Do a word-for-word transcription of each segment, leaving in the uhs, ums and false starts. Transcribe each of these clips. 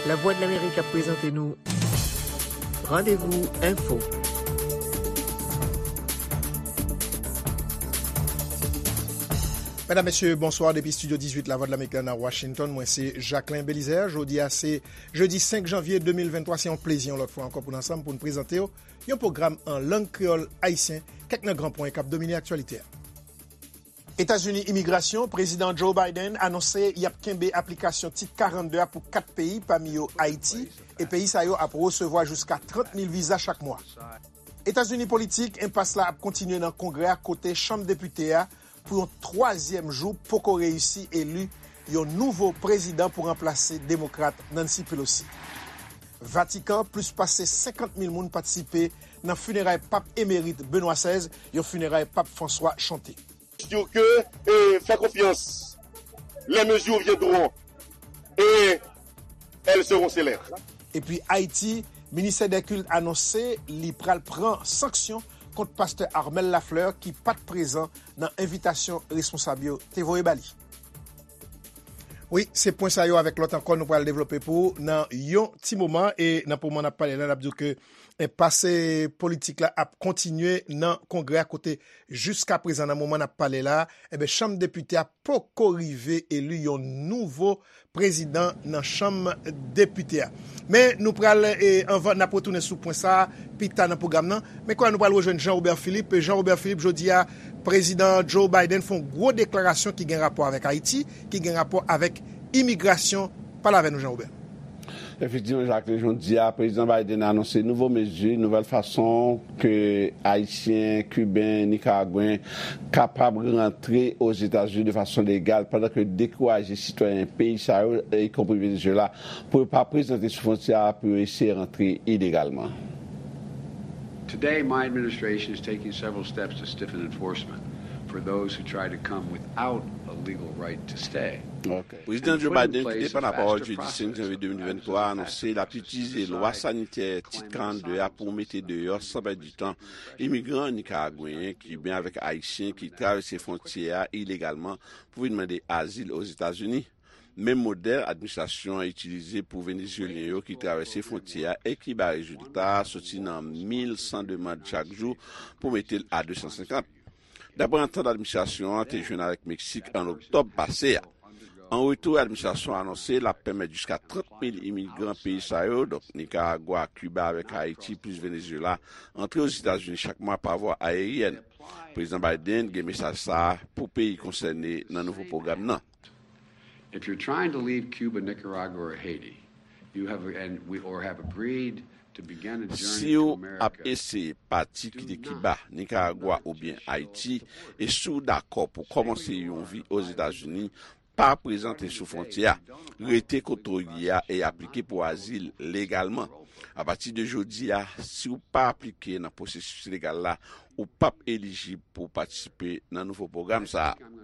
Lavwadlamerik ap prezante nou Randevou Enfo. Medam, mesye, bonswa depi Estidyo dizuit Lavwadlamerik la nan Washington. Mwen se Jacquelin Belizaire. Jodi a se jedi senk janvye de mil venntwa. Se yon plezi yon lòt fwa ankò pou n ansanm pou n prezante w yon pwogram an lang kreyòl ayisyen, kèk nan gran pwen k ap domine aktyalite a. Etazini, imigrasyon, Prezidan Joe Biden anonse y ap kenbe aplikasyon Tit karannde a pou kat peyi, pami yo Ayiti, e peyi sa yo ap resevwa jiska trant mil viza chak mwa. Etazini, politik, enpas la ap kontinye nan Kongrè a, kote Chanm Depite a, pou yon twazyèm jou, poko reyisi eli yon nouvo prezidan pou ranplase Demokrat Nancy Pelosi. Vatikan, plis pase senkant mil moun patisipe nan fineray Pap emerit Benoît sèz, yon fineray Pap Franswa chante. Dire que, euh, faire confiance, les mesures viendront et elles seront célèbres. Epi Ayiti, Ministè dè Kilt anonse li pral pran sanksyon kont pastè Armel Lafleur ki pa t prezan nan envitasyon responsab yo te voye ba li. Wi, se pwen sa yo avèk lòt ankò nou pral devlope pou ou nan yon ti moman. E nan moman n ap pale la, n ap di w ke enpas politik la ap kontinye nan Kongrè a, kote jiska prezan, nan moman n ap pale la, enben, Chanm Depite a poko rive eli yon nouvo prezidan nan Chanm Depite a. Men nou pral, e, anvan n ap retounen sou pwen sa a pita nan pwogram nan. Men kounye a nou pral rejwenn Jean Robert Philippe. Jean Robert Philippe, jodi a, Prezidan Joe Biden fè yon gwo deklarasyon ki gen rapò avèk Ayiti, ki gen rapò avèk imigrasyon. Pale avè nou, Jean Robert. Efektivman, Jacques, jodi a, Prezidan Biden anonse nouvo mezi, nouvèl fason ke Ayisyen, Kiben, Nikaragwen kapab rantre Ozetazini de fason legal, pandan ke dekouraje sitwayen peyi sa yo, ikonpri Venezuela, pou yo pa prezante sou fwontyè a, pou yo eseye rantre ilegalman. Today, my administration is taking several steps to stiffen enforcement for those who try to come without a legal right to stay. Prezidan Joe Biden, ki te pran lapawòl jedi senk janvye de mil venntwa, anonse l ap itilize lwa sanitè Tit karannde a pou mete deyò, san pèdi tan, imigran nikaragweyen, kiben avèk ayisyen ki travèse fwontyè a ilegalman pou vin mande azil Ozetazini. Menm modèl administrasyon an itilize pou Venezuelyen yo ki travèse fwontyè a e ki bay rezilta, soti nan mil san demann chak jou pou mete l a de san senkant. Daprè antant administrasyon an te jwenn avèk Meksik an oktòb pase a. An retou, administrasyon an anonse l ap pèmèt jiska trant mil imigran peyi sa yo, donk Nikaragwa, Kiba avèk Ayiti, plis Venezuela, antre Ozetazini chak mwa pa vwa ayeryèn. Prezidan Biden gen mesaj sa a pou peyi konsène nan nouvo pwogram nan. If you're trying to leave Cuba, Nicaragua, or Haiti, you have, and we, or have agreed to begin a journey to America. Si w ap eseye pati kite Kiba, Nikaragwa oubyen Ayiti, e si w dakò pou kòmanse yon vi Ozetazini, pa prezante sou fwontyè a. Rete kote w ye a e aplike pou azil legalman. Apati de jodi a, si w pa aplike nan pwosesis legal la, ou p ap elijib pou w patisipe nan nouvo pwogram sa a.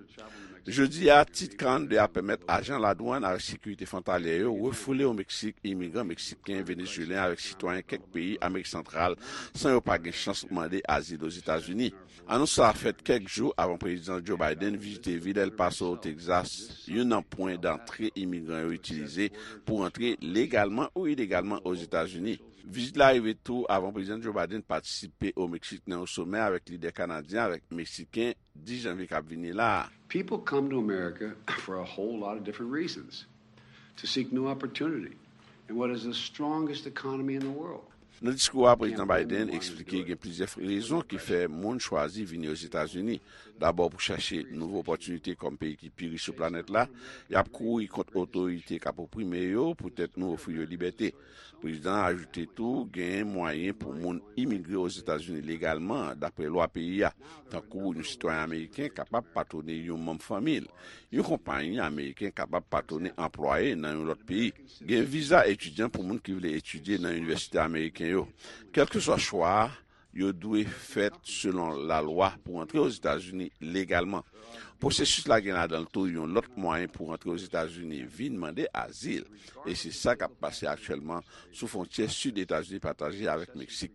Jodi a, Tit karannde a pèmèt ajan ladwann avèk sekirite fwontalyè yo refoule o Meksik imigran meksiken, venezuelyen avèk sitwayen kèk peyi Amerik Santral san yo pa gen chans mande azil Ozetazini. Anons sa a fèt kèk jou avan Prezidan Joe Biden vizite vil El Paso, o Texas, youn nan pwen dantre imigran yo itilize pou rantre legalman ou ilegalman Ozetazini. Vizit la rive tou avan Prezidan Joe Biden patisipe o Meksik nan yon somè avèk lidè kanadyen avèk meksiken dis janvye k ap vini la a. People come to America for a whole lot of different reasons, to seek new opportunity in what is the strongest economy in the world. Nan diskou a, Prezidan Biden eksplike gen plizyè rezon ki fè moun chwazi vini Ozetazini. Dabò, pou chache nouvo opòtinite kòm peyi ki pi rich sou planèt la, y ap kouri kont otorite k ap oprime yo poutèt nou ofri yo libète. Prezidan an ajoute tou, genyen mwayen pou moun imigre Ozetazini legalman, daprè lwa peyi a, tankou yon sitwayen ameriken kapab patwone yon manm fanmi l. Yon konpayi ameriken kapab patwone anplwaye nan yon lòt peyi. Gen viza etidyan pou moun ki vle etidye nan inivèsite ameriken yo. Kèlkeswa chwa a, yo dwe fèt selon lalwa pou antre Ozetazini legalman. Pwosesis la gen ladan l tou yon lòt mwayen pou antre Ozetazini vin mande azil, e se sa k ap pase aktyèlman sou fwontyè sid Etazini pataje avèk Meksik.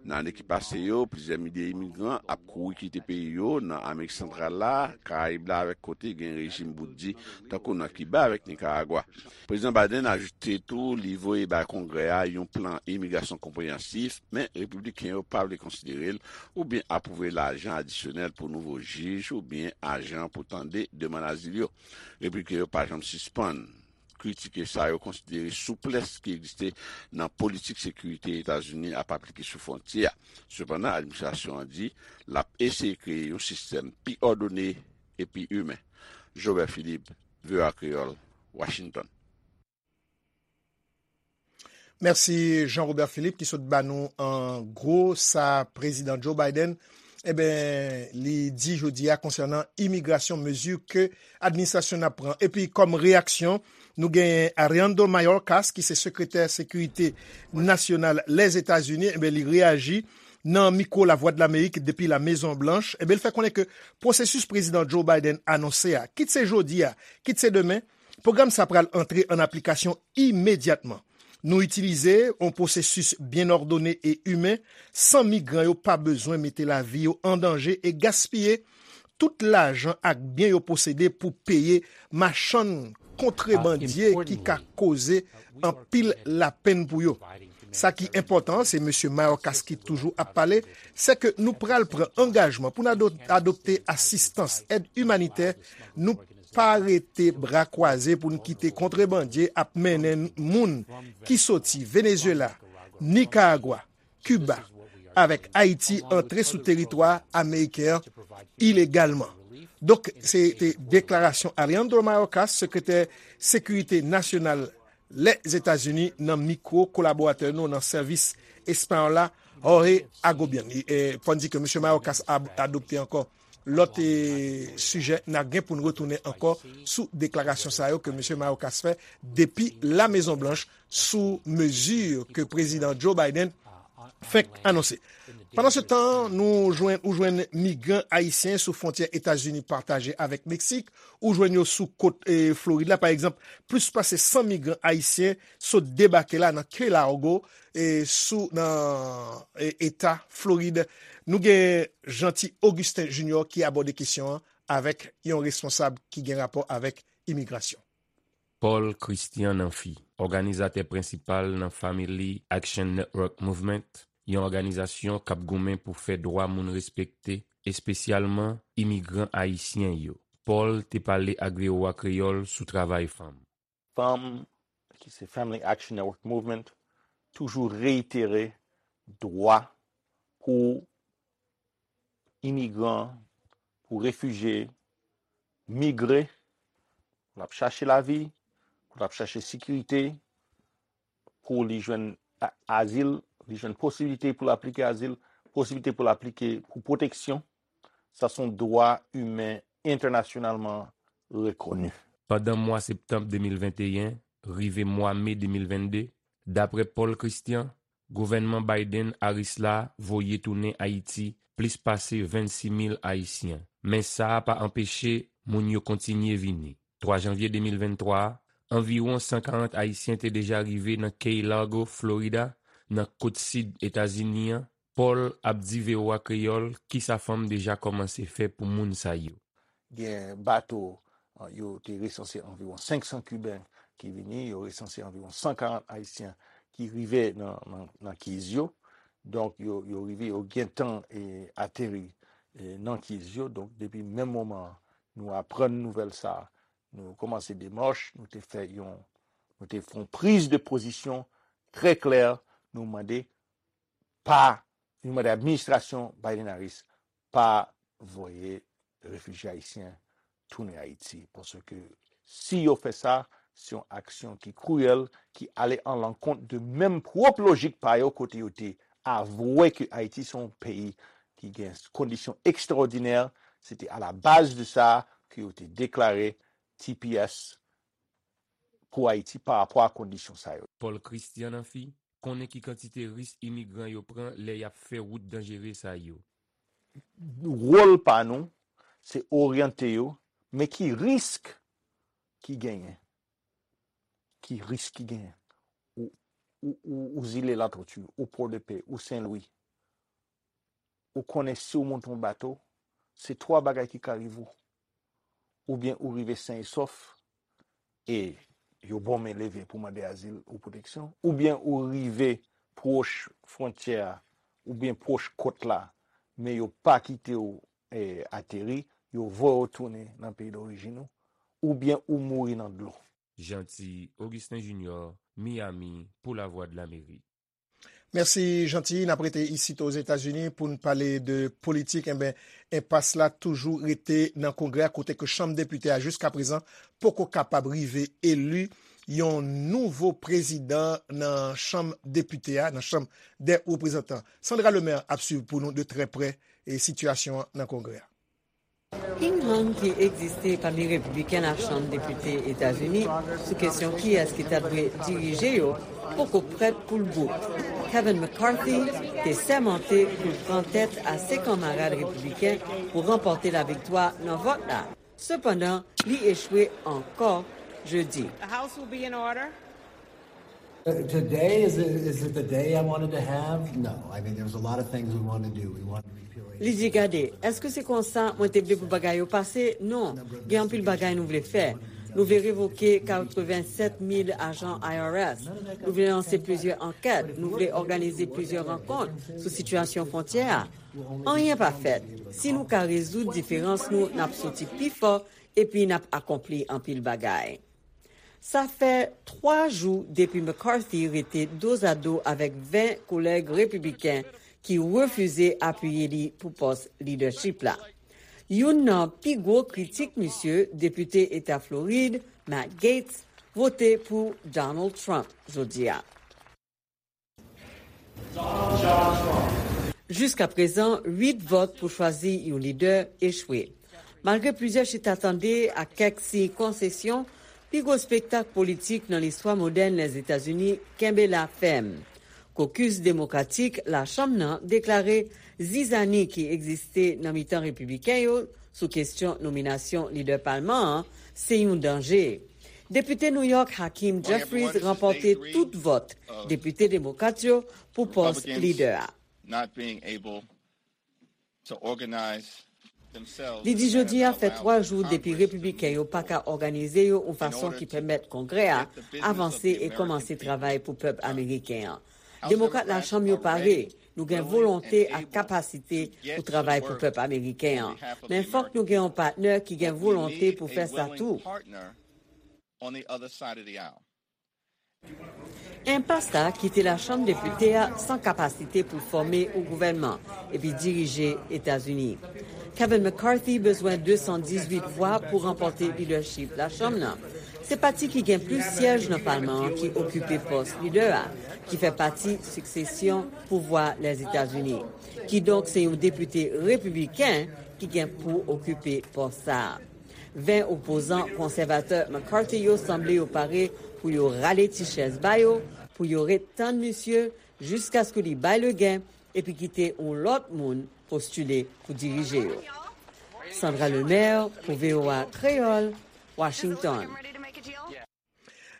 Nan ane ki pase yo, plizyè milye imigran ap kouri kite peyi yo nan Amerik Santral la, Karayib la avèk kote gen rejim bout di, tankou nan Kiba avèk Nikaragwa. Prezidan Biden ajoute tou li voye bay Kongrè a yon plan imigrasyon konpreyansif, men Repibliken yo pa vle konsidere l oubyen apwouve lajan adisyonèl pou nouvo jij oubyen ajan pou tande demann azil yo. Repibliken yo pa janm sispann kritike sa yo konsidere souplès ki egziste nan politik sekirite Etazini ap aplike sou fwontyè a. Sepandan, administrasyon an di l ap eseye kreye yon sistèm pi òdone epi imen. Jobert Philippe, V O A Kreyòl, Washington. Mèsi Jean Robert Philippe ki sot ba nou an gwo sa Prezidan Joe Biden, eben, li di jodi a konsènan imigrasyon, mezi ke administrasyon n ap pran. Epi kòm reyaksyon, nou genyen Alejandro Mayorkas ki se sekretè sekirite nasyonal Lèzetazini, eben, li reyaji nan mikwo Lavwadlamerik depi La Mezon Blanch, eben, li fè konnen ke pwosesis Prezidan Joe Biden anonse a, kit se jodi a, kit se demen, pwogram sa pral antre an aplikasyon imedyatman. Nou itilize yon pwosesis byen òdone e imen, san migran yo pa bezwen mete lavi yo an danje e gaspiye tout lajan ak byen yo posede pou peye machann kontrebandye ki ka koze anpil lapenn pou yo. Sa ki enpòtan, se Mesye Mayorkas ki toujou ap pale, se ke nou pral pran angajman pou n adopte asistans, èd imanitè, nou pa rete bra kwaze pou n kite kontrebandye ap mennen moun ki soti Venezuela, Nicaragua, Kiba, avèk Ayiti antre sou teritwa ameriken an ilegalman. Donk, se te deklarasyon Alejandro Mayorkas, sekretè sekirite nasyonal Lèzetazini, nan mikwo kolaboratè nou nan sèvis espayòl la, Jorge Agobian. Fò n di ke Mesye Mayorkas a adopte ankò lòt sijè, n a gen pou n retounen ankò sou deklarasyon sa yo ke Mesye Mayorkas fè depi La Mezon Blanch sou mezi ke Prezidan Joe Biden fenk anonse. Pandan se tan, nou jwenn, ou jwenn migran ayisyen sou fwontyè Etazini pataje avèk Meksik, ou jwenn yo sou kot e, Florid la. Pa egzanp, plis pase san migran ayisyen sot debake la nan Key Largo e sou nan e, eta Florid. Nou gen Jeanty Augustin Junior ki abòde kesyon an avèk yon responsab ki gen rapò avèk imigrasyon. Paul Christian Namphy, òganizatè prensipal nan Family Action Network Movement, yon òganizasyon k ap goumen pou fè dwa moun respekte, espesyalman imigran ayisyen yo. Paul te pale ak V O A Kreyòl sou travay fanm. Fanm, ki se Family Action Network Movement, toujou reyitere dwa pou imigran, pou refijye migre, pou l ap chache lavi, pou l ap chache sekirite, pou li jwenn azil, li jwenn posiblite pou l aplike azil, posiblite pou l aplike pou pwoteksyon. Sa se yon dwa imen entènasyonalman rekoni. Pandan mwa septanm de mil venteyen rive mwa me de mil vennde, dapre Paul Christian, gouvènman Biden-Harris la voye tounen Ayiti plis pase vennsis mil Ayisyen. Men sa a pa anpeche moun yo kontinye vini. Twa janvye de mil venntwa a, anviwon san karant Ayisyen te deja rive nan Key Largo, Florida, nan kot sid Etazini an. Paul ap di V O A Kreyòl kisa fanm deja kòmanse fè pou moun sa yo. Gen bato, yo te resanse anviwon senk san Kiben ki vini, yo resanse anviwon san karant Ayisyen ki rive nan, nan, nan Keys yo. Donk, yo, yo rive, yo gentan e, ateri e, nan Keys yo. Donk, depi menm moman nou aprann nouvèl sa, nou kòmanse demach, nou te fè yon, nou te fè yon priz de pozisyon trè klè, nou mande pa, nou mande administrasyon Biden-Harris pa voye refijye ayisyen tounen Ayiti. Paske si yo fè sa, se yon aksyon ki kriyèl, ki ale an lankont de menm pwòp lojik pa yo kote yo te avwe ke Ayiti se yon peyi ki gen kondisyon ekstraòdinè. Se te a la baz de sa ke yo te deklare T P S pou Ayiti pa rapò a kondisyon sa yo. Paul Christian Namphy konnen ki kantite risk imigran yo pran lè y ap fè wout danjere sa yo. Wòl pa nou, se oryante yo, men ki risk ki genyen? Ki risk ki genyen? Ou, ou, ou, ou Zile Latoti, ou Pòdepè, ou Sen Lwi, ou konnen si w monte yon bato, se twa bagay ki ka rive w. Oubyen ou rive sen e sòf, e yo ba w men leve pou mande azil ou pwoteksyon, oubyen ou rive pwòch fwontyè a, oubyen pwòch kòt la, men yo pa kite w, eh, ateri, yo voye w tounen nan peyi dorijin ou, oubyen ou mouri nan dlo. Jeanty Augustin Junior, Miami, pou Lavwadlamerik. Mèsi, Jeanty. N ap rete isit Ozetazini pou n pale de politik. Enben, enpas la toujou rete nan Kongrè a, kote ke Chanm Depite a, jiskaprezan, poko kapab rive eli yon nouvo prezidan nan Chanm Depite a, nan Chanm dè Reprezantan. Sandra Lemaire ap swiv pou nou de trè prè, e, sitiyasyon an nan Kongrè a. Ping-pong ki egziste pami repibliken Lachanm Depite Etazini sou kesyon kiyès ki ta dwe dirije yo poko prèt pou l bout. Kevin McCarthy te sèmante pou l pran tèt a se kanmarad repibliken pou ranpòte laviktwa nan vòt la. Sepandan, li echwe ankò jedi. The House will be in order. Uh, today, is it, is it the day I wanted to have? No. I mean, there was a lot of things we wanted to do. We wanted to repeal Li di, "Gade, èske se konsa mwen te vle pou bagay yo pase? Non. Gen anpil bagay nou vle fè. Nou vle revoke katrevennsèt mil ajan I R S. Nou vle lanse plizyè ankèt. Nou vle òganize plizyè rankont sou sitiyasyon fwontyè a. Anyen pa fèt. Si nou ka rezoud diferans nou, n ap soti pi fò epi n ap akonpli anpil bagay." Sa fè twa jou depi McCarthy rete dozado avèk ven kolèg repibliken ki refize apiye li pou pòs lidèchip la. Youn nan pi gwo kritik misye, depite eta Florid, Matt Gaetz, vote pou Donald Trump jodi a. Jiskaprezan, uit vòt pou chwazi yon lidè echwe. Malgre plizyè chita tande ak kèk siy konsesyon, pi gwo espektak politik nan listwa modèn Lèzetazini kenbe la fèm. Kokis Demokratik Lachanm nan deklare zizani ki egziste nan mitan Repibliken yo sou kesyon nominasyon lidè palman an se yon danje. Depite New York Hakeem Jeffries ranpòte tout vòt depite demokrat yo pou pòs lidè a. Li di jodi a fè twa jou depi repibliken yo pa ka òganize yo yon fason ki pèmèt Kongrè a avanse e kòmanse travay pou pèp ameriken an. Demokrat Lachanm yo pare. Nou gen volonte ak kapasite pou travay pou pèp ameriken an. Men fòk nou gen yon patnè ki gen volonte pou fè sa tou. Enpas la kite Lachanm Depite a san kapasite pou l fòme yon gouvènman epi dirije Etazini. Kevin McCarthy bezwen de san dizuit vwa pou ranpòte lidèchip Lachanm nan. Se pati ki gen plis syèj nan palman an ki okipe pòs lidè a, ki fè pati siksesyon pouvwa Lèzetazini. Kidonk, se yon depite repibliken ki gen pou okipe pòs sa a. Ven opozan konsèvatè McCarthy yo sanble yo pare pou yo rale ti chèz ba yo, pou yo ret tann misye jiskaske li bay legen epi kite yon lòt moun postile pou dirije yo. Sandra Lemaire pou V O A Kreyòl, Washington.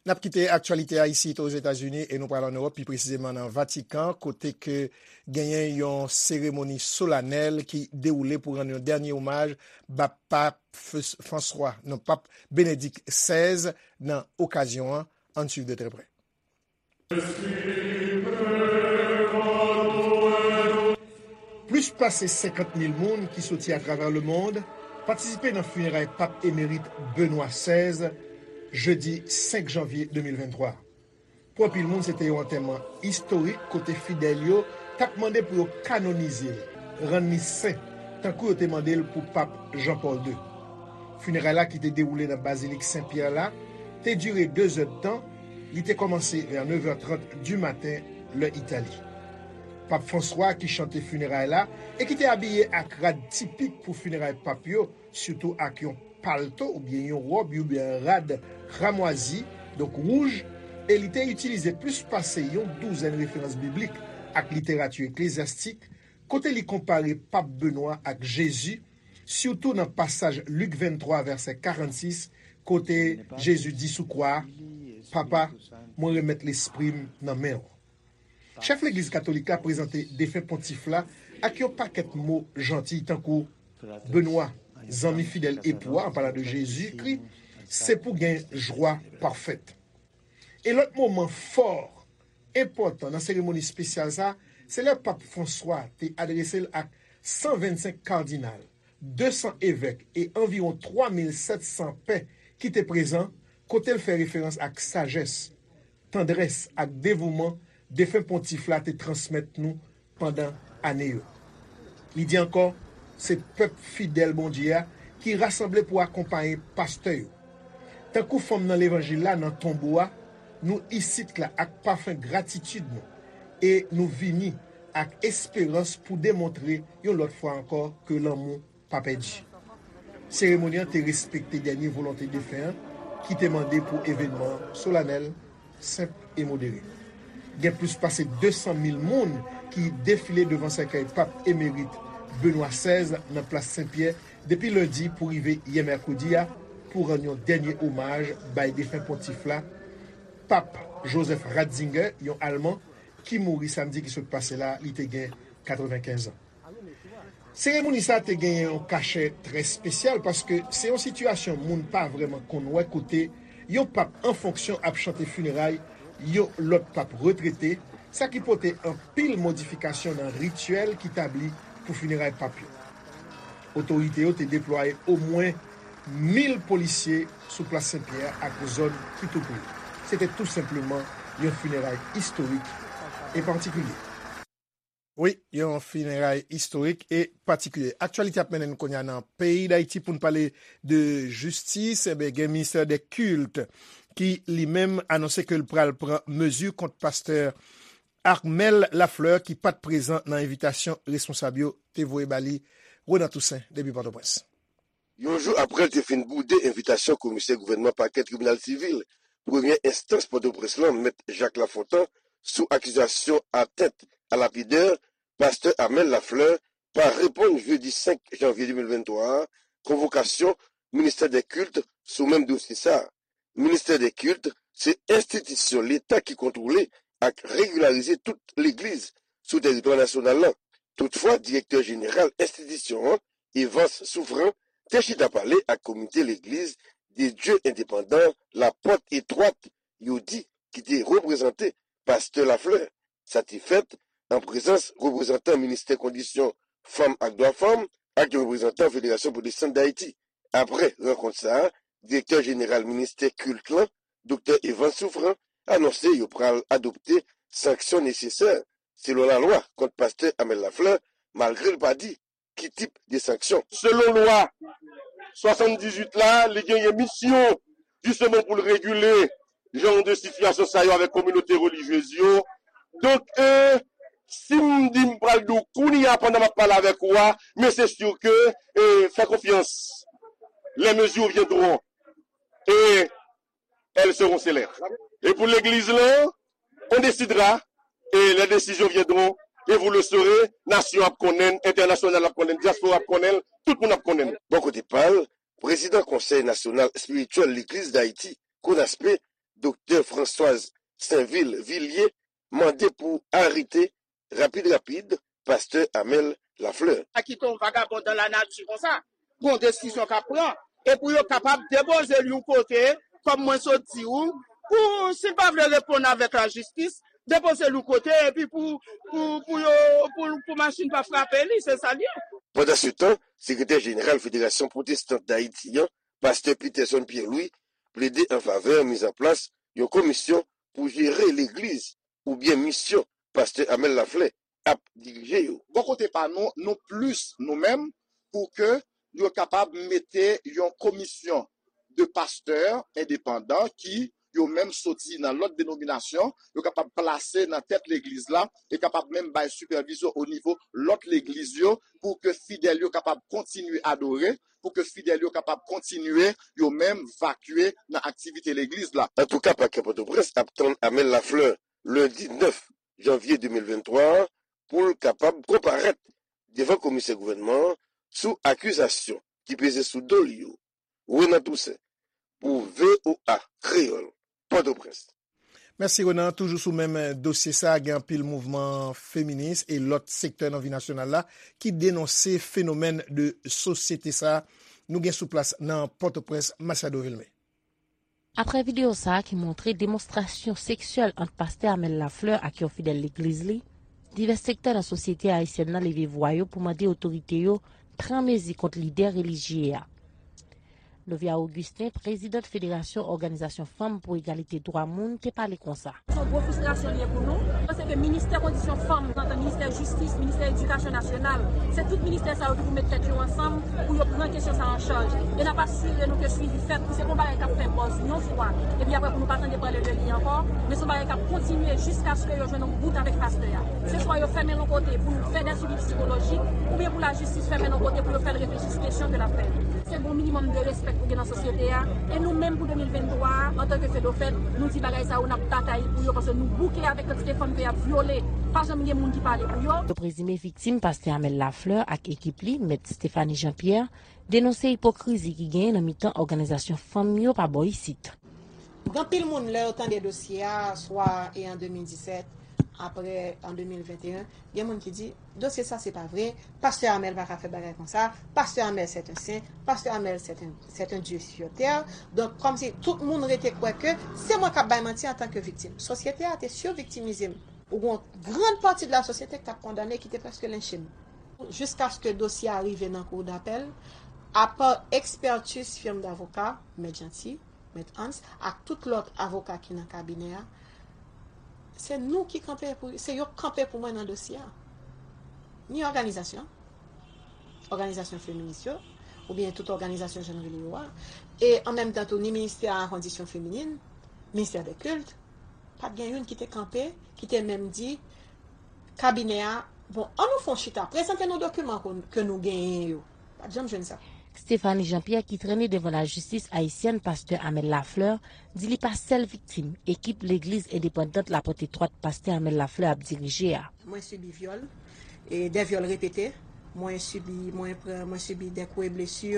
N ap kite aktyalite a isit Ozetazini e nou pral ann Ewòp, pi presizeman nan Vatikan, kote ke genyen yon seremoni solanèl ki dewoule pou rann yon dènye omaj ba Pap F-, Franswa, non, Pap Benedik sèz nan okazyon an. Ann swiv de trè prè. Plis pase senkant mil moun ki soti atravè lemonn patisipe nan fineray Pap emerit Benwa sèz, jedi senk janvye de mil venntwa. Pou anpil moun, se te yon antèman istorik kote fidèl yo t ap mande pou yo kanonize l, rann li sen, tankou yo te mande l pou Pap Jan Pòl de. Fineray la, ki te dewoule nan Bazilik Sen Pyè la, te dire de zè d tan. Li te kòmanse vè nèf è trant di maten, lè Itali. Pap Franswa, ki chante fineray la e ki te abiye ak rad tipik pou fineray pap yo, sitou ak yon palto oubyen yon wòb oubyen rad kramwazi, donk wouj, e li te itilize plis pase yon douzèn referans biblik ak literati eklezyastik, kote li konpare Pap Benwa ak Jezi, sitou nan pasaj Lik venntwa, vèsè karannsis, kote Jezi di sou kwa a, "Papa, mwen remèt lespri m nan men w." Chèf Legliz Katolik la prezante defen pontif la ak yon pakèt mo janti tankou Benwa, zanmi fidèl epou a, an palan de Jezikri, se pou gen jwa pafèt. E lòt moman fò, enpòtan nan seremoni espesyal sa, se lè Pap Franswa te adrese l ak san vennsenk kadinal, de san evèk e anviwon twa mil sèt san pè ki te prezan, kote l fè referans ak sajès, tandrès ak devouman defen pontif la te transmèt nou pandan ane yo. Li di ankò, se pèp fidèl Bondye a ki rasanble pou akonpaye pastè yo. Tankou fanm nan levanjil la nan tonbo a, nou isit la ak pafen gratitid nou e nou vini ak esperans pou demontre yon lòt fwa ankò ke lanmou pa pèdi. Seremoni an te respekte dènye volonte defen an ki te mande pou evènman an solanèl, senp e modere. Gen plis pase de san mil moun ki defile devan sèkèy Pap emerit Benwa sèz nan Plas Sen Pyè depi lendi pou rive yè mèkredi a pou rann yon dènye omaj bay defen pontif la, Pap Joseph Ratzinger, yon Alman, ki mouri samdi ki sot pase la, li te gen katrevenkenz an. Seremoni sa a te genyen yon kachè trè espesyal paske se yon sitiyasyon moun pa vrèman konn wè kote yon pap an fonksyon ap chante fineray yon lòt pap retrete, sa ki pote anpil modifikasyon nan rityèl ki tabli pou fineray pap yo. Otorite yo te deplwaye omwen mil polisye sou Plas Sen Pyè ak zòn ki tou pre. Se te tou senpleman yon fineray istorik e patikilye. Wi, yon fineray istorik e patikilye. Aktyalite ap mennen n kounye a nan peyi Dayiti pou n pale de jistis. Enben, gen ministè dè kilt ki li menm anonse ke l pral pran mezi kont pastè Armel Lafleur ki pa t prezan nan envitasyon responsab yo te voye ba li. Renan Toussaint, depi Pòtoprens. Yon jou apre l te fin boude envitasyon komisè gouvènman pakè tribinal sivil premyè enstans Pòtoprens lan, Mèt Jacques Lafontant, sou akizasyon atent a lapidè, pastè Armel Lafleur pa reponn jedi senk janvye de mil venntwa a konvokasyon ministè dè kilt sou menm dosye sa a. Ministè dè kilt se enstitisyon Leta ki kontwole ak regilarize tout legliz sou tèritwa nasyonal lan. Toutfwa, direktè jeneral enstitisyon an, Evans Souffrant, te chita pale ak komite legliz de Dye endepandan Lapòt Etwat, yo di, ki te reprezante pastè Lafleur. Sa te fèt an prezans reprezantan ministè kondisyon fanm ak dwa fanm ak yon reprezantan Federasyon Pwotestan Dayiti. Apre rankont sa a, direktè jeneral ministè kilt lan, Doktè Evans Souffrant, anonse yo pral adopte sanksyon nesesè selon lalwa kont pastè Armel Lafleur, malgre l pa di ki tip de sanksyon. Selon lwa swasanndizuit la, li genyen misyon jisteman pou l regile jan de sitiyasyon sa yo avèk kominote relijyez yo. Donk, e, si m di m pral di w kounye a pandan m ap pale avèk ou a, men se si ke, e, fè konfyans, les mesures viendront et elles seront célères. E pou legliz lan, on décidera et les décisions viendront et vous le saurez, nasyon ap konnen, entènasyonal ap konnen, dyaspora ap konnen, tout moun ap konnen. Bò kote pa l, prezidan Konsèy Nasyonal Espirityèl Legliz Dayiti, Konaspe, Doktè Françoise Sainvil Villiers, mande pou arete rapid rapid pastè Amel Lafleur. Sa ki te yon vagabon dan lanati konsa, gon desizyon k ap pran, e pou yo kapab depoze l yon kote, kòm mwen sot di w, pou si l pa vle reponn avèk lajistis, depoze l yon kote, epi pou, pou, pou yo, pou, pou machin pa frape li, se sa l ye. Pandansetan, sekretè jeneral Federasyon Pwotestan Dayiti an, pastè Peterson Pierre Louis, plede an favè mizanplas yon komisyon pou jere legliz oubyen misyon pastè Amel Laflè ap dirije yo. Bò kote pa nou, nou plis, nou menm, pou ke yo kapab mete yon komisyon de pastè endepandan ki yo menm soti nan lòt denominasyon, yo kapab plase nan tèt legliz la e kapab menm bay sipèvizyon o nivo lòt legliz yo pou ke fidèl yo kapab kontinye adore, pou ke fidèl yo kapab kontinye yo menm vakye nan aktivite legliz la. Antouka, pakè Pòtoprens ap tann Amel Lafleur lendi nèf janvye de mil venntwa a pou l kapab konparèt devan komisè gouvènman an sou akizasyon ki peze sou do l yo. Renan Toussaint, pou VOA Kreyòl, Pòtoprens. Mèsi, Renan. Toujou sou menm dosye sa a, gen anpil mouvman feminis e lòt sektè nan vi nasyonal la ki denonse fenomèn de sosyete sa a. Nou gen sou plas nan Pòtoprens, Machado Vilmé. Apre videyo sa a ki montre demonstrasyon seksyèl ant pastè Amel Lafleur ak yon fidèl legliz li, divès sektè nan sosyete ayisyèn nan leve vwa yo pou mande otorite yo pran mezi kont lidè relijye a. Novia Augustin, prezidant Federasyon Òganizasyon Fanm pou Egalite Dwa Moun, te pale konsa. Se yon gwo fristrasyon li ye pou nou. Paske ministè kondisyon fanm, nan ministè jistis, ministè edikasyon nasyonal, se tout ministè sa yo ki pou met tèt yo ansanm pou yo pran kesyon sa an chaj. E n ap asire nou ke swivi fèt, pou se pa yon bagay k ap fè buzz yon fwa, epi apre pou nou pa tande pale de li ankò, men se yon bagay k ap kontinye jiskaske yo jwenn yon bout avèk pastè a. Se swa yo fèmen l yon kote pou nou fè dè swivi psikolojik, oubyen pou lajistis fèmen l yon kote pou yo fè l reflechi sou kesyon ke l ap fè. Se gon minimòm de respè pou gen nan sosyete a. E nou menm pou de mil venntwa a, antanke Fedofèd, nou di bagay sa yo, n ap batay pou yo, paske nou bouke avèk kantite fanm ke y ap vyole. Pa janm gen moun ki pale pou yo. Yo prezime viktim, pastè Amel Lafleur ak ekip li, mèt Stéphanie Jean Pierre, denonse ipokrizi ki genyen nan mitan òganizasyon fanm yo pa bò isit. Gen anpil moun, lè yo tande dosye a, swa e an de mil disèt, apre an de mil venteyen, gen moun ki di, dosye sa se pa vre, pastè Amel pa ka fè bagay konsa, pastè Amel c'est un saint, pastè Amel c'est un, c'est un Dieu sur terre. Donk, kòmsi tout moun rete kwè ke se mwen k ap bay manti antanke viktim. Sosyete a te siviktimize m. Ou gen yon gran pati de la sosyete ki t ap kondane, ki te prèske lenche m. Jiskaske dosye a rive nan kou dapèl, apa ekspètiz firm davoka, Mèt Jeanty, Mèt Hans, ak tout lòt avoka ki nan kabinè a, se nou ki kanpe pou, se yo k kanpe pou mwen nan dosye a. Ni òganizasyon, òganizasyon feminis yo, oubyen tout òganizasyon jan n rele yo a, e an menm tan tou ni ministè a kondisyon feminin, ministè dè kilt, pa t gen youn ki te kanpe, ki te menm di, kabinè a, bon, ann nou fè yon chita, prezante nou dokiman ke nou genyen yo. Pa t janm jwenn sa. Stéphanie Jean Pierre ki trennen devan lajistis ayisyèn pastè Amel Lafleur di li pa sèl viktim ekip legliz endepandant Laporte Etwat pastè Amel Lafleur ap dirije a. Mwen sibi vyòl, e dè vyòl repete. Mwen sibi, mwen pran, mwen sibi dè kou e blesi.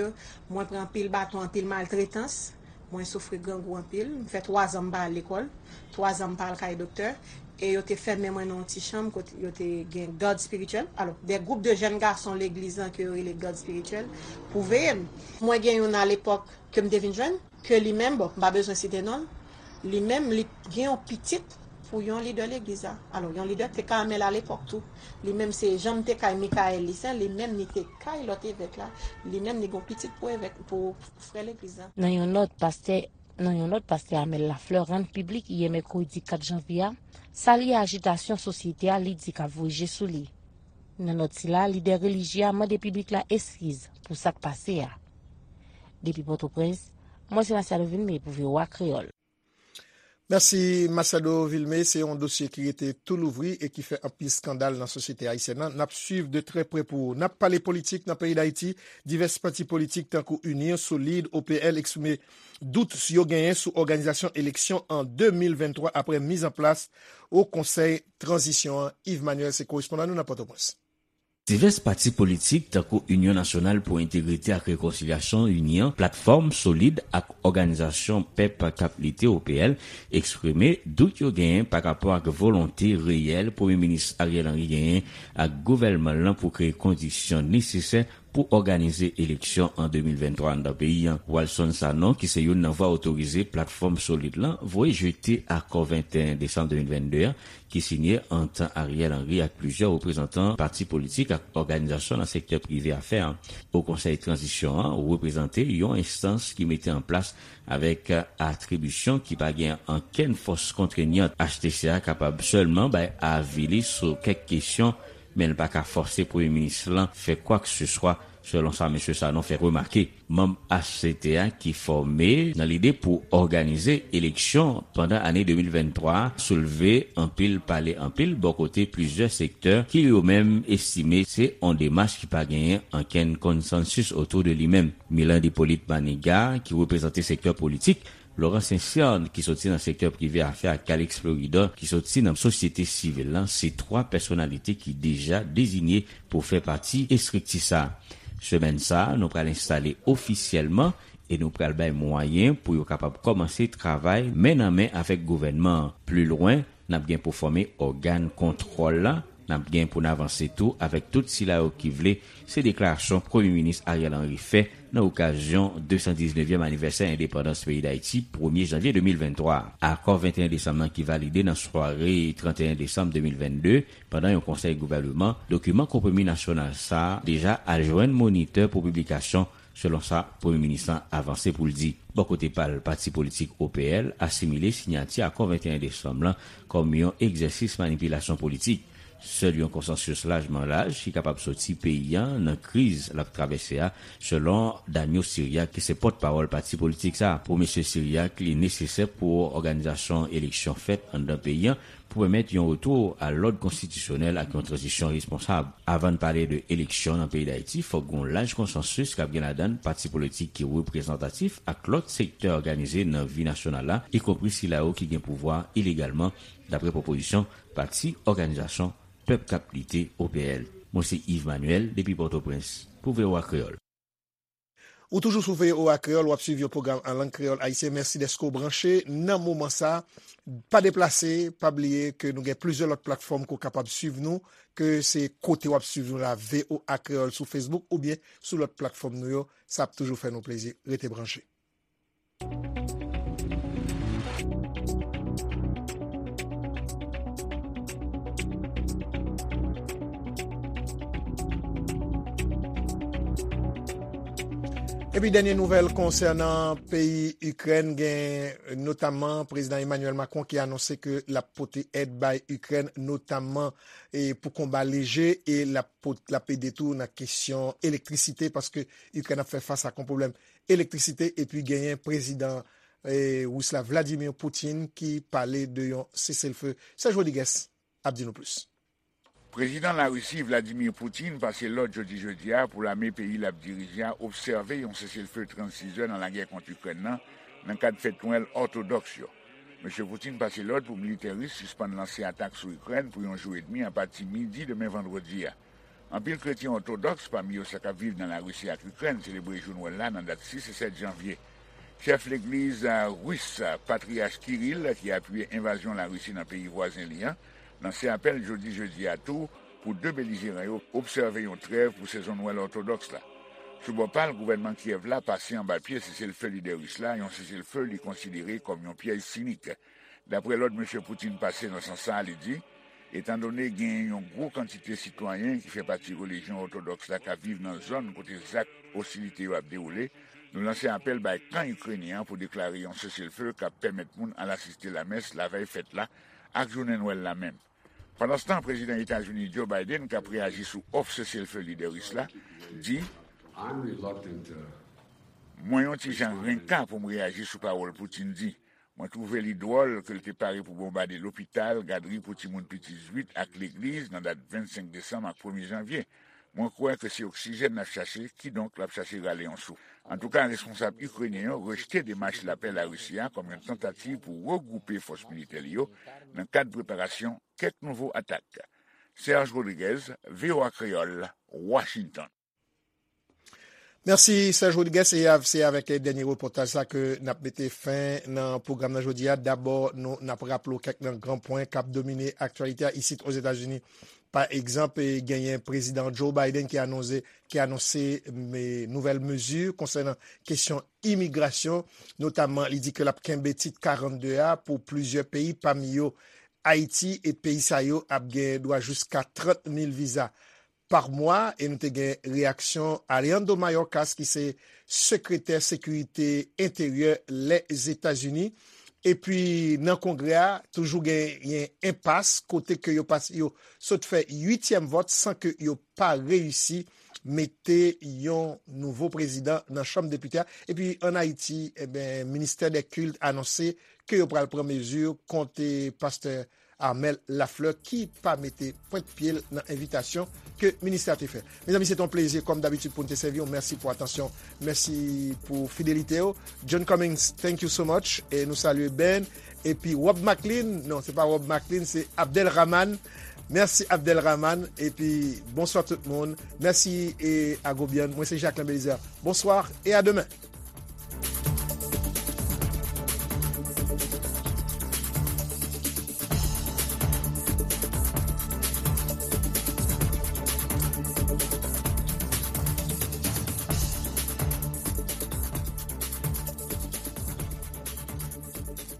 Mwen pran anpil baton, anpil maltretans. Mwen soufri grangou anpil. M fè twazan m pa al lekòl. Twazan m pa al kay doktè. E yo te fèmen mwen nan yon ti chanm kote yo te gen gad espirityèl. Alò, de gwoup de jèn gason legliz lan ke yo rele gad espirityèl pou veye m. Mwen gen youn alepòk ke m te vin jwenn, ke li menm, bon, m pa bezwen site non l, li menm, li gen yon pitit pou yon lidè legliz la. Alò, yon lidè te kay Amel alepòk tou. Li menm, se jan m te kay Michael Lissaint, li menm, li te kay lòt evèk la. Li menm, li gen yon pitit pou evèk, pou frè legliz la. Nan yon nòt, pastè Nan yon nòt, pastè Amel Lafleur rann piblik yè mèkredi kat janvye a, salye ajitasyon sosyete a li di k ap voye je sou li. Nan nòt sila, lidè relijye a mande piblik la eskiz pou sa k pase a. Depi Pòtoprens, mwen se Machado Vilmé pou V O A Kreyòl. Mèsi Machado Vilmé, se yon dosye ki rete tou louvri e ki fè anpil eskandal nan sosyete ayisyèn nan. N ap swiv de trè prè pou ou. N ap pale politik nan peyi Dayiti. Divès pati politik tankou Inyon, Solid, O P L eksprime dout yo genyen sou òganizasyon eleksyon an de mil venntwa apre mizanplas Wo Konsèy Tranzisyon an. Yves Manuel se korespondan nou nan Pòtoprens. Divès pati politik tankou Inyon Nasyonal pou Entegrite ak Rekonsilyasyon, Inyon, Platfòm Solid ak Òganizasyon Pèp k ap Lite, O P L, eksprime dout yo genyen pa rapò ak volonte reyèl Premye Minis Ariel Henry genyen ak gouvènman l lan pou kreye kondisyon nesesè pou òganize eleksyon an de mil venntwa anndan peyi a. Walson Sanon, ki se youn nan vwa otorize Platfòm Solid lan, voye jete akò venteyen desanm de mil vennde a, ki sinye ant Ariel Henry ak plizyè reprezantan pati politik ak òganizasyon nan sektè prive afè a. Wo Konsèy Tranzisyon an reprezante yon enstans ki mete an plas avèk atribisyon ki pa gen ankenn fòs kontreynan. H T C a kapab sèlman bay avi li sou kèk kesyon, men l pa ka fòse Premye Minis lan fè kwakeseswa, selon sa mesye Sanon fè remake. Manm H C T a ki fòme nan lide pou òganize eleksyon pandan ane de mil venntwa a soulve anpil pale anpil bò kote plizyè sektè ki yo menm estime se on demach ki pa genyen ankenn konsansis otou de li menm. Milan Hyppolite Manigat, ki reprezante sektè politik, Laurent Saint-Cyr, ki soti nan sektè prive afè, ak Calixte Fleuridor, ki soti nan sosyete sivil lan, se twa pèsonalite ki deja deziye pou fè pati estrikti sa a. Semèn sa a, nou pral enstale ofisyèlman E nou pral bay mwayen pou yo kapab kòmanse travay men nan men avèk gouvènman an. Pli lwen, n ap gen pou fòme ògàn kontwòl la, n ap gen pou n avanse tou avèk tout sila yo ki vle, se deklarasyon Premye Minis Ariel Henry fè nan okazyon de san diznèvyèm anivèsè endepandans peyi Dayiti, premye janvye de mil venntwa. Akò venteyen desanm nan ki valide nan sware tranteyen desanm de mil vennde, pandan yon konsèy gouvèneman, dokiman konpwomi nasyonal sa a deja al jwenn monitè pou piblikasyon, selon sa Premye Minis lan avanse pou l di. Bò kote pa l, pati politik O P L asimile siyati akò venteyen desanm lan kòm yon egzèsis manipilasyon politik. Sèl yon konsansis lajman laj ki kapab soti peyi a nan kriz l ap travèse a, selon Daniel Syriac, ki se pòtpawòl pati politik sa a. Pou mesye Syriac, li nesesè pou òganizasyon eleksyon fèt anndan peyi a pou pèmèt yon retou a lòd konstitisyonèl ak yon tranzisyon responsab. Avan n pale de eleksyon nan peyi Dayiti, fòk gen yon laj konsansis k ap gen ladan l pati politik ki reprezantatif ak lòt sektè òganize nan vi nasyonal la, ikonpri sila yo ki gen pouvwa ilegalman, dapre pwopozisyon Pati Òganizasyon Pèp k ap Lite, O P L. Mwen se Yves Manuel depi Pòtoprens pou V O A Kreyòl. Ou toujou sou V O A Kreyòl, w ap swiv yon pwogram an lang kreyòl ayisyen. Mèsi dèske w branche nan moman sa a. Pa deplase, pa bliye ke nou gen plizyè lòt platfòm ke w kapab swiv nou, ke se kote w ap swiv nou la, V O A Kreyòl sou Facebook oubyen sou lòt platfòm nou yo. Sa ap toujou fè nou plezi. Rete branche. Epi dènye nouvèl konsènan peyi Ikrèn, gen notamman Prezidan Emmanuel Macron ki anonse ke l ap pote èd bay Ikrèn, notamman, e, pou konba leje, e l ap pot-, l ap ede tou nan kesyon elektrisite, paske Ikrèn ap fè fas ak yon pwoblèm elektrisite, epi genyen Prezidan, e, Ris la, Vladimir Putin, ki pale de yon seselfe. Serge Rodriguez ap di nou plis. Prezidan Larisi, Vladimir Putin, pase lòd jodi jedi a pou lame peyi l ap dirije a obsève yon seselfe trannsis zè nan lagè kont Ikrèn nan, nan kad fèt Nwèl òtodòks yo. Mesye Putin pase lòd pou militè ris sispann lanse atak sou Ikrèn pou yon jou edmi apati midi demen vandredi a. Anpil kretyen òtodòks, pami yo sa k ap viv nan Larisi ak Ikrèn, selebre jou Nwèl la nan dat sis e sèt janvye. Chèf legliz, a, ris, a, Patriyach Kirill, ki apiye envazyon Larisi nan peyi vwazen li an, lanse apèl jodi jedi a tou pou de belijeran yo obsève yon trèv pou sezon Nwèl òtodòks la. Sou bò pa l, gouvènman Kyèv la pase anba pye seselfe lidè ris la, yon seselfe li konsidere kòm yon pyèj sinik. Dapre lòd mesye Putin pase nan sans sa a, li di, etandone genyen yon gwo kantite sitwayen ki fè pati relijyon òtodòks la k ap viv nan zòn kote zak ostilite yo ap dewoule, nou lanse apèl bay kan ikrenyen an pou deklare yon seselfe k ap pèmèt moun al asiste lamès lavèy fèt la ak jounen Nwèl la menm. Pandanstan, Prezidan Etazini Joe Biden k ap reyaji sou òf seselfe lidè ris la, di, I'm reluctant to Mwen yon ti jan renka pou m reyaji sou pawòl Putin di. Mwen twouve li dwòl ke l te pare pou bonbade lopital, gadri pou timoun piti zwit ak legliz nan dat vennsenk desanm ak premye janvye. Mwen kwè ke se oksijèn l ap chache, kidonk l ap chache rale yon souf. Antouka, responsab ikrenyen yo rejte demach lapè Larisi a kòm yon tantativ pou regwoupe fòs militè li yo nan kad preparasyon kèk nouvo atak. Serge Rodriguez, V O A Kreyòl, Washington. Mèsi, Serge Rodriguez. E av-, se avèk dènye repòtaj sa ke n ap mete fen nan pwogram nan jodi a. Dabò, nou, n ap raple w kèk nan gran pwen k ap domine aktyalite a isit Ozetazini. Pa egzanp, e, genyen Prezidan Joe Biden ki anonse, ki anonse, me, nouvèl mezi konsènan kesyon imigrasyon, notamman li di ke l ap kenbe tit karannde a pou plizyè peyi, pami yo Ayiti, e peyi sa yo ap gen dwa jiska trant mil viza pa mwa, e nou te gen reyaksyon Alejandro Mayorkas, ki se sekretè sekirite enteryè Lèzetazini. Epi nan Kongrè a, toujou genyen enpas, kote ke yo pas-, yo sot fè uityèm vòt san ke yo pa reyisi mete yon nouvo prezidan nan Chanm Depite a. Epi ann Ayiti, eben, Ministè dè Kilt anonse ke yo pral pran mezi kont, e, pastè Armel Lafleur ki pa mete pwent pye l nan envitasyon ke ministè a te fè. Mezanmi, se te yon plezi, kòm dabitid, pou n te sèvi w. Mèsi pou atansyon, mèsi pou fidelite w. John Cummings, thank you so much. E nou salye Ben. Epi Rob Maclean, non, se pa Rob Maclean, se Abdel Rahman. Mèsi, Abdel Rahman. Epi, bonswa tout moun. Mèsi, e, Agobian. Mwen, se Jacquelin Belizaire. Bonsoir et à demain.